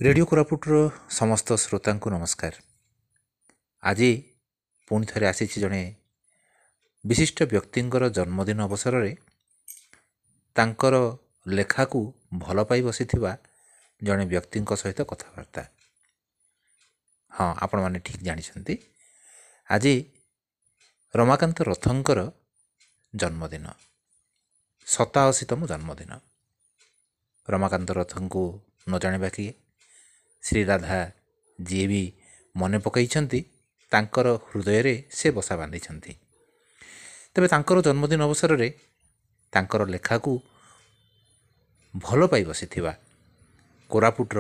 Radio କୋରାପୁଟର ସମସ୍ତ ଶ୍ରୋତାଙ୍କୁ ନମସ୍କାର। ଆଜି ପୁଣି ଥରେ ଆସିଛି ଜଣେ ବିଶିଷ୍ଟ ବ୍ୟକ୍ତିଙ୍କର ଜନ୍ମଦିନ ଅବସରରେ ତାଙ୍କର ଲେଖାକୁ ଭଲ ପାଇ ବସିଥିବା ଜଣେ ବ୍ୟକ୍ତିଙ୍କ ସହିତ କଥାବାର୍ତ୍ତା। ହଁ, ଆପଣମାନେ ଠିକ୍ ଜାଣିଛନ୍ତି, ଆଜି ରମାକାନ୍ତ ରଥଙ୍କର ଜନ୍ମଦିନ, 87ତମ ଜନ୍ମଦିନ। ରମାକାନ୍ତ ରଥଙ୍କୁ ନ ଜାଣିବା କିଏ? ଶ୍ରୀରାଧା ଯିଏ ବି ମନେ ପକାଇଛନ୍ତି, ତାଙ୍କର ହୃଦୟରେ ସେ ବସା ବାନ୍ଧିଛନ୍ତି। ତେବେ ତାଙ୍କର ଜନ୍ମଦିନ ଅବସରରେ ତାଙ୍କର ଲେଖାକୁ ଭଲ ପାଇ ବସିଥିବା କୋରାପୁଟର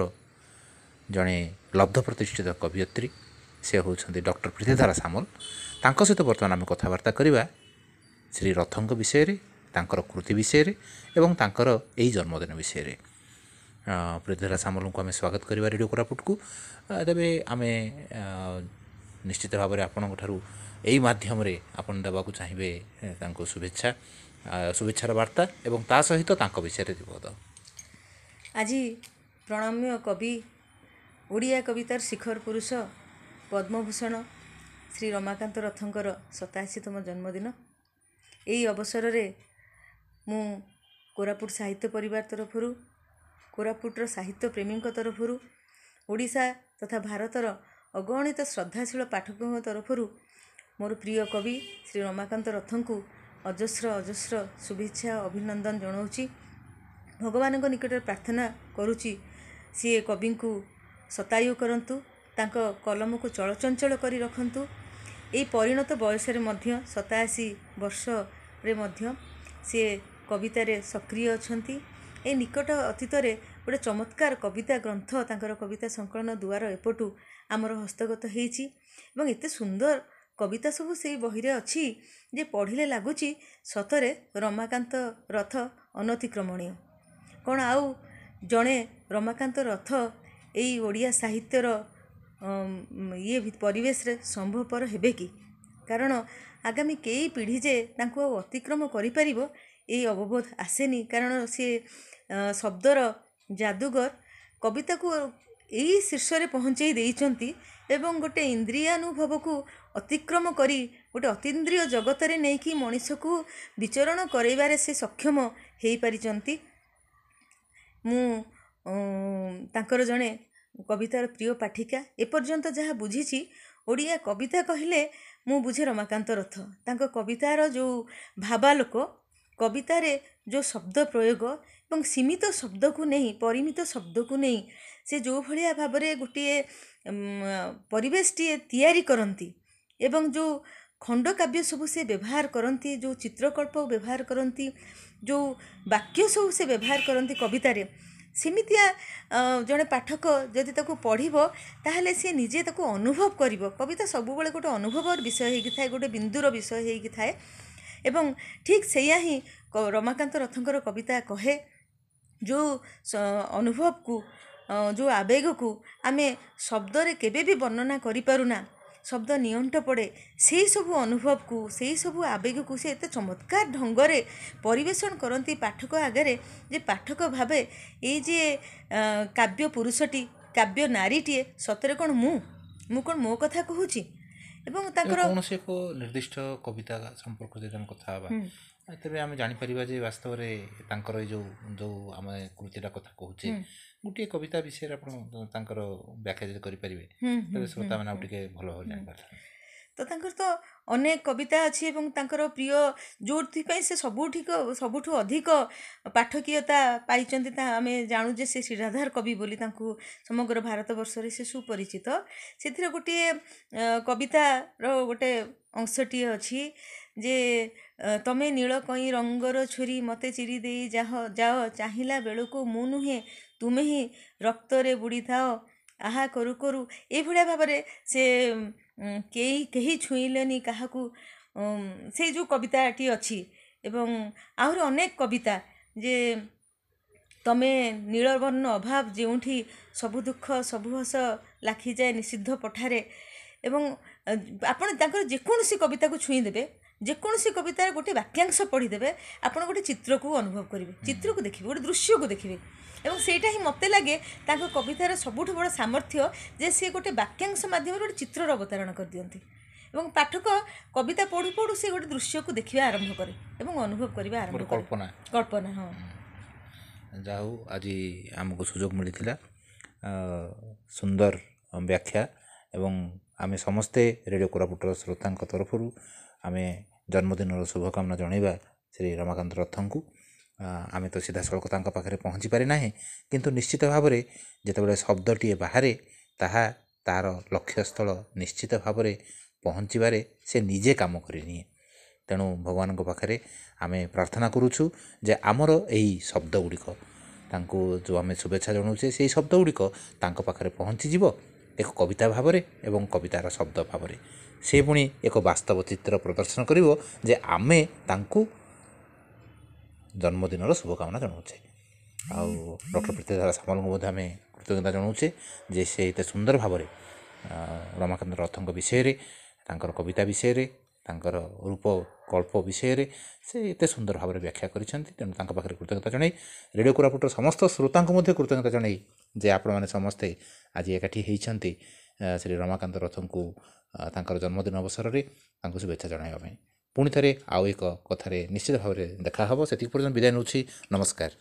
ଜଣେ ଲବ୍ଧ ପ୍ରତିଷ୍ଠିତ କବିୟତ୍ରୀ, ସେ ହେଉଛନ୍ତି ଡକ୍ଟର ପ୍ରୀତିଧାରା ସାମଲ। ତାଙ୍କ ସହିତ ବର୍ତ୍ତମାନ ଆମେ କଥାବାର୍ତ୍ତା କରିବା ଶ୍ରୀ ରଥଙ୍କ ବିଷୟରେ, ତାଙ୍କର କୃତି ବିଷୟରେ ଏବଂ ତାଙ୍କର ଏଇ ଜନ୍ମଦିନ ବିଷୟରେ। ପ୍ରୀତିଧାରା ସାମଲଙ୍କୁ ଆମେ ସ୍ୱାଗତ କରିବା ରେଡ଼ିଓ କୋରାପୁଟକୁ। ତେବେ ଆମେ ନିଶ୍ଚିତ ଭାବରେ ଆପଣଙ୍କ ଠାରୁ ଏଇ ମାଧ୍ୟମରେ ଆପଣ ଦେବାକୁ ଚାହିଁବେ ତାଙ୍କୁ ଶୁଭେଚ୍ଛା, ଶୁଭେଚ୍ଛାର ବାର୍ତ୍ତା ଏବଂ ତା ସହିତ ତାଙ୍କ ବିଷୟରେ ପଦ। ଆଜି ପ୍ରଣମ୍ୟ କବି, ଓଡ଼ିଆ କବିତାର ଶିଖର ପୁରୁଷ, ପଦ୍ମଭୂଷଣ ଶ୍ରୀ ରମାକାନ୍ତ ରଥଙ୍କର 87ତମ ଜନ୍ମଦିନ। ଏହି ଅବସରରେ ମୁଁ କୋରାପୁଟ ସାହିତ୍ୟ ପରିବାର ତରଫରୁ, କୋରାପୁଟର ସାହିତ୍ୟ ପ୍ରେମୀଙ୍କ ତରଫରୁ, ଓଡ଼ିଶା ତଥା ଭାରତର ଅଗଣିତ ଶ୍ରଦ୍ଧାଶୀଳ ପାଠକଙ୍କ ତରଫରୁ ମୋର ପ୍ରିୟ କବି ଶ୍ରୀ ରମାକାନ୍ତ ରଥଙ୍କୁ ଅଜସ୍ର ଅଜସ୍ର ଶୁଭେଚ୍ଛା ଅଭିନନ୍ଦନ ଜଣାଉଛି। ଭଗବାନଙ୍କ ନିକଟରେ ପ୍ରାର୍ଥନା କରୁଛି, ସିଏ କବିଙ୍କୁ ଶତାୟୁ କରନ୍ତୁ, ତାଙ୍କ କଲମକୁ ଚଳଚଞ୍ଚଳ କରି ରଖନ୍ତୁ। ଏଇ ପରିଣତ ବୟସରେ ମଧ୍ୟ, 87 ବର୍ଷରେ ମଧ୍ୟ ସିଏ କବିତାରେ ସକ୍ରିୟ ଅଛନ୍ତି। ଏଇ ନିକଟ ଅତୀତରେ ଗୋଟେ ଚମତ୍କାର କବିତା ଗ୍ରନ୍ଥ, ତାଙ୍କର କବିତା ସଂକଳନ ଦୁଆର ଏପଟୁ ଆମର ହସ୍ତଗତ ହେଇଛି ଏବଂ ଏତେ ସୁନ୍ଦର କବିତା ସବୁ ସେଇ ବହିରେ ଅଛି ଯେ ପଢ଼ିଲେ ଲାଗୁଛି ସତରେ ରମାକାନ୍ତ ରଥ ଅନତିକ୍ରମଣୀୟ। କ'ଣ ଆଉ ଜଣେ ରମାକାନ୍ତ ରଥ ଏଇ ଓଡ଼ିଆ ସାହିତ୍ୟର ଇଏ ପରିବେଶରେ ସମ୍ଭବପର ହେବେ କି? କାରଣ ଆଗାମୀ କେଇ ପିଢ଼ି ଯେ ତାଙ୍କୁ ଆଉ ଅତିକ୍ରମ କରିପାରିବ, ଏଇ ଅବବୋଧ ଆସେନି। କାରଣ ସିଏ ଶବ୍ଦର ଯାଦୁଗର, କବିତାକୁ ଏଇ ଶୀର୍ଷରେ ପହଞ୍ଚେଇ ଦେଇଛନ୍ତି ଏବଂ ଗୋଟେ ଇନ୍ଦ୍ରିୟାନୁଭବକୁ ଅତିକ୍ରମ କରି ଗୋଟେ ଅତୀନ୍ଦ୍ରିୟ ଜଗତରେ ନେଇକି ମଣିଷକୁ ବିଚରଣ କରାଇବାରେ ସେ ସକ୍ଷମ ହେଇପାରିଛନ୍ତି। ମୁଁ ତାଙ୍କର ଜଣେ କବିତାର ପ୍ରିୟ ପାଠିକା। ଏପର୍ଯ୍ୟନ୍ତ ଯାହା ବୁଝିଛି, ଓଡ଼ିଆ କବିତା କହିଲେ ମୁଁ ବୁଝେ ରମାକାନ୍ତ ରଥ। ତାଙ୍କ କବିତାର ଯେଉଁ ଭାବାଲୋକ, କବିତାରେ ଯେଉଁ ଶବ୍ଦ ପ୍ରୟୋଗ ଏବଂ ସୀମିତ ଶବ୍ଦକୁ ନେଇ, ପରିମିତ ଶବ୍ଦକୁ ନେଇ ସେ ଯେଉଁ ଭଳିଆ ଭାବରେ ଗୋଟିଏ ପରିବେଶଟିଏ ତିଆରି କରନ୍ତି ଏବଂ ଯେଉଁ ଖଣ୍ଡକାବ୍ୟ ସବୁ ସେ ବ୍ୟବହାର କରନ୍ତି, ଯେଉଁ ଚିତ୍ରକଳ୍ପ ବ୍ୟବହାର କରନ୍ତି, ଯେଉଁ ବାକ୍ୟ ସବୁ ସେ ବ୍ୟବହାର କରନ୍ତି କବିତାରେ, ସେମିତିଆ ଜଣେ ପାଠକ ଯଦି ତାକୁ ପଢ଼ିବ ତାହେଲେ ସିଏ ନିଜେ ତାକୁ ଅନୁଭବ କରିବ। କବିତା ସବୁବେଳେ ଗୋଟେ ଅନୁଭବର ବିଷୟ ହେଇକି ଥାଏ, ଗୋଟେ ବିନ୍ଦୁର ବିଷୟ ହେଇକି ଥାଏ ଏବଂ ଠିକ୍ ସେଇଆ ହିଁ ରମାକାନ୍ତ ରଥଙ୍କର କବିତା କହେ। ଯେଉଁ ଅନୁଭବକୁ, ଯେଉଁ ଆବେଗକୁ ଆମେ ଶବ୍ଦରେ କେବେ ବି ବର୍ଣ୍ଣନା କରିପାରୁନା, ଶବ୍ଦ ନିଅଣ୍ଟ ପଡ଼େ, ସେଇ ସବୁ ଅନୁଭବକୁ, ସେଇ ସବୁ ଆବେଗକୁ ସେ ଏତେ ଚମତ୍କାର ଢଙ୍ଗରେ ପରିବେଷଣ କରନ୍ତି ପାଠକ ଆଗରେ ଯେ ପାଠକ ଭାବେ ଏଇ ଯେ କାବ୍ୟ ପୁରୁଷଟି, କାବ୍ୟ ନାରୀଟିଏ, ସତରେ କ'ଣ ମୁଁ କ'ଣ ମୋ କଥା କହୁଛି? ଏବଂ ତାଙ୍କର କୌଣସି ଏକ ନିର୍ଦ୍ଦିଷ୍ଟ କବିତା ସମ୍ପର୍କରେ ଯଦି ଆମେ କଥା ହେବା, ତେବେ ଆମେ ଜାଣିପାରିବା ଯେ ବାସ୍ତବରେ ତାଙ୍କର ଏଇ ଯେଉଁ ଆମେ କୃତିଟା କଥା କହୁଛେ, ଗୋଟିଏ କବିତା ବିଷୟରେ ଆପଣ ତାଙ୍କର ବ୍ୟାଖ୍ୟା ଯଦି କରିପାରିବେ, ତେବେ ଶ୍ରୋତାମାନେ ଆଉ ଟିକେ ଭଲ ଭାବରେ ଜାଣିପାରିଥାନ୍ତେ। ତ ତାଙ୍କର ତ ଅନେକ କବିତା ଅଛି ଏବଂ ତାଙ୍କର ପ୍ରିୟ, ଯେଉଁଥିପାଇଁ ସେ ସବୁଠୁ ଅଧିକ ପାଠକୀୟତା ପାଇଛନ୍ତି, ତା ଆମେ ଜାଣୁ ଯେ ସେ ଶ୍ରୀରାଧାର କବି ବୋଲି ତାଙ୍କୁ ସମଗ୍ର ଭାରତବର୍ଷରେ ସେ ସୁପରିଚିତ। ସେଥିରେ ଗୋଟିଏ କବିତାର ଗୋଟେ ଅଂଶଟିଏ ଅଛି ଯେ ତମେ ନୀଳ କଇଁ ରଙ୍ଗର ଛୁରୀ ମୋତେ ଚିରି ଦେଇ ଯାଅ, ଚାହିଁଲା ବେଳକୁ ମୁଁ ନୁହେଁ ତୁମେ ହିଁ ରକ୍ତରେ ବୁଡ଼ିଥାଅ, ଆହା କରୁ କରୁ। ଏଇଭଳିଆ ଭାବରେ ସେ କେହି ଛୁଇଁଲେନି କାହାକୁ, ସେଇ ଯେଉଁ କବିତାଟି ଅଛି। ଏବଂ ଆହୁରି ଅନେକ କବିତା ଯେ ତମେ ନୀଳବର୍ଣ୍ଣ ଅଭାବ ଯେଉଁଠି ସବୁ ଦୁଃଖ ସବୁ ହସ ଲାଖିଯାଏ ନିଷିଦ୍ଧ ପଠାରେ। ଏବଂ ଆପଣ ତାଙ୍କର ଯେକୌଣସି କବିତାକୁ ଛୁଇଁ ଦେବେ, ଯେକୌଣସି କବିତାର ଗୋଟେ ବାକ୍ୟାଂଶ ପଢ଼ିଦେବେ, ଆପଣ ଗୋଟେ ଚିତ୍ରକୁ ଅନୁଭବ କରିବେ, ଚିତ୍ରକୁ ଦେଖିବେ, ଗୋଟେ ଦୃଶ୍ୟକୁ ଦେଖିବେ। ଏବଂ ସେଇଟା ହିଁ ମୋତେ ଲାଗେ ତାଙ୍କ କବିତାର ସବୁଠୁ ବଡ଼ ସାମର୍ଥ୍ୟ, ଯେ ସିଏ ଗୋଟେ ବାକ୍ୟାଂଶ ମାଧ୍ୟମରେ ଗୋଟେ ଚିତ୍ରର ଅବତାରଣା କରିଦିଅନ୍ତି ଏବଂ ପାଠକ କବିତା ପଢ଼ୁ ପଢ଼ୁ ସେ ଗୋଟେ ଦୃଶ୍ୟକୁ ଦେଖିବା ଆରମ୍ଭ କରେ ଏବଂ ଅନୁଭବ କରିବା ଆରମ୍ଭ କରେ। କଳ୍ପନା। କଳ୍ପନା, ହଁ। ଯାହା ହଉ, ଆଜି ଆମକୁ ସୁଯୋଗ ମିଳିଥିଲା, ସୁନ୍ଦର ବ୍ୟାଖ୍ୟା, ଏବଂ ଆମେ ସମସ୍ତେ ରେଡ଼ିଓ କୋରାପୁଟର ଶ୍ରୋତାଙ୍କ ତରଫରୁ ଆମେ ଜନ୍ମଦିନର ଶୁଭକାମନା ଜଣାଇବା ଶ୍ରୀ ରମାକାନ୍ତ ରଥଙ୍କୁ। ଆମେ ତ ସିଧାସଳଖ ତାଙ୍କ ପାଖରେ ପହଞ୍ଚି ପାରିନାହେଁ, କିନ୍ତୁ ନିଶ୍ଚିତ ଭାବରେ ଯେତେବେଳେ ଶବ୍ଦଟିଏ ବାହାରେ ତାହା ତା'ର ଲକ୍ଷ୍ୟସ୍ଥଳ ନିଶ୍ଚିତ ଭାବରେ ପହଞ୍ଚିବାରେ ସେ ନିଜେ କାମ କରିନିଏ। ତେଣୁ ଭଗବାନଙ୍କ ପାଖରେ ଆମେ ପ୍ରାର୍ଥନା କରୁଛୁ ଯେ ଆମର ଏଇ ଶବ୍ଦ ଗୁଡ଼ିକ, ତାଙ୍କୁ ଯେଉଁ ଆମେ ଶୁଭେଚ୍ଛା ଜଣାଉଛେ, ସେଇ ଶବ୍ଦ ଗୁଡ଼ିକ ତାଙ୍କ ପାଖରେ ପହଞ୍ଚିଯିବ ଏକ କବିତା ଭାବରେ ଏବଂ କବିତାର ଶବ୍ଦ ଭାବରେ ସେ ପୁଣି ଏକ ବାସ୍ତବ ଚିତ୍ର ପ୍ରଦର୍ଶନ କରିବ ଯେ ଆମେ ତାଙ୍କୁ ଜନ୍ମଦିନର ଶୁଭକାମନା ଜଣାଉଛେ। ଆଉ ଡକ୍ଟର ପ୍ରୀତିଧାରା ସାମଲଙ୍କୁ ମଧ୍ୟ ଆମେ କୃତଜ୍ଞତା ଜଣାଉଛେ ଯେ ସେ ଏତେ ସୁନ୍ଦର ଭାବରେ ରମାକାନ୍ତ ରଥଙ୍କ ବିଷୟରେ, ତାଙ୍କର କବିତା ବିଷୟରେ, ତାଙ୍କର ରୂପ କଳ୍ପ ବିଷୟରେ ସେ ଏତେ ସୁନ୍ଦର ଭାବରେ ବ୍ୟାଖ୍ୟା କରିଛନ୍ତି। ତେଣୁ ତାଙ୍କ ପାଖରେ କୃତଜ୍ଞତା ଜଣାଇ, ରେଡ଼ିଓ କୋରାପୁଟର ସମସ୍ତ ଶ୍ରୋତାଙ୍କୁ ମଧ୍ୟ କୃତଜ୍ଞତା ଜଣାଇ ଯେ ଆପଣମାନେ ସମସ୍ତେ ଆଜି ଏକାଠି ହେଇଛନ୍ତି ଶ୍ରୀ ରମାକାନ୍ତ ରଥଙ୍କୁ ତାଙ୍କର ଜନ୍ମଦିନ ଅବସରରେ ତାଙ୍କୁ ଶୁଭେଚ୍ଛା ଜଣାଇବା ପାଇଁ। ପୁଣି ଥରେ ଆଉ ଏକ କଥାରେ ନିଶ୍ଚିତ ଭାବରେ ଦେଖା ହେବ। ସେତିକି ପର୍ଯ୍ୟନ୍ତ ବିଦାୟ ନେଉଛି। ନମସ୍କାର।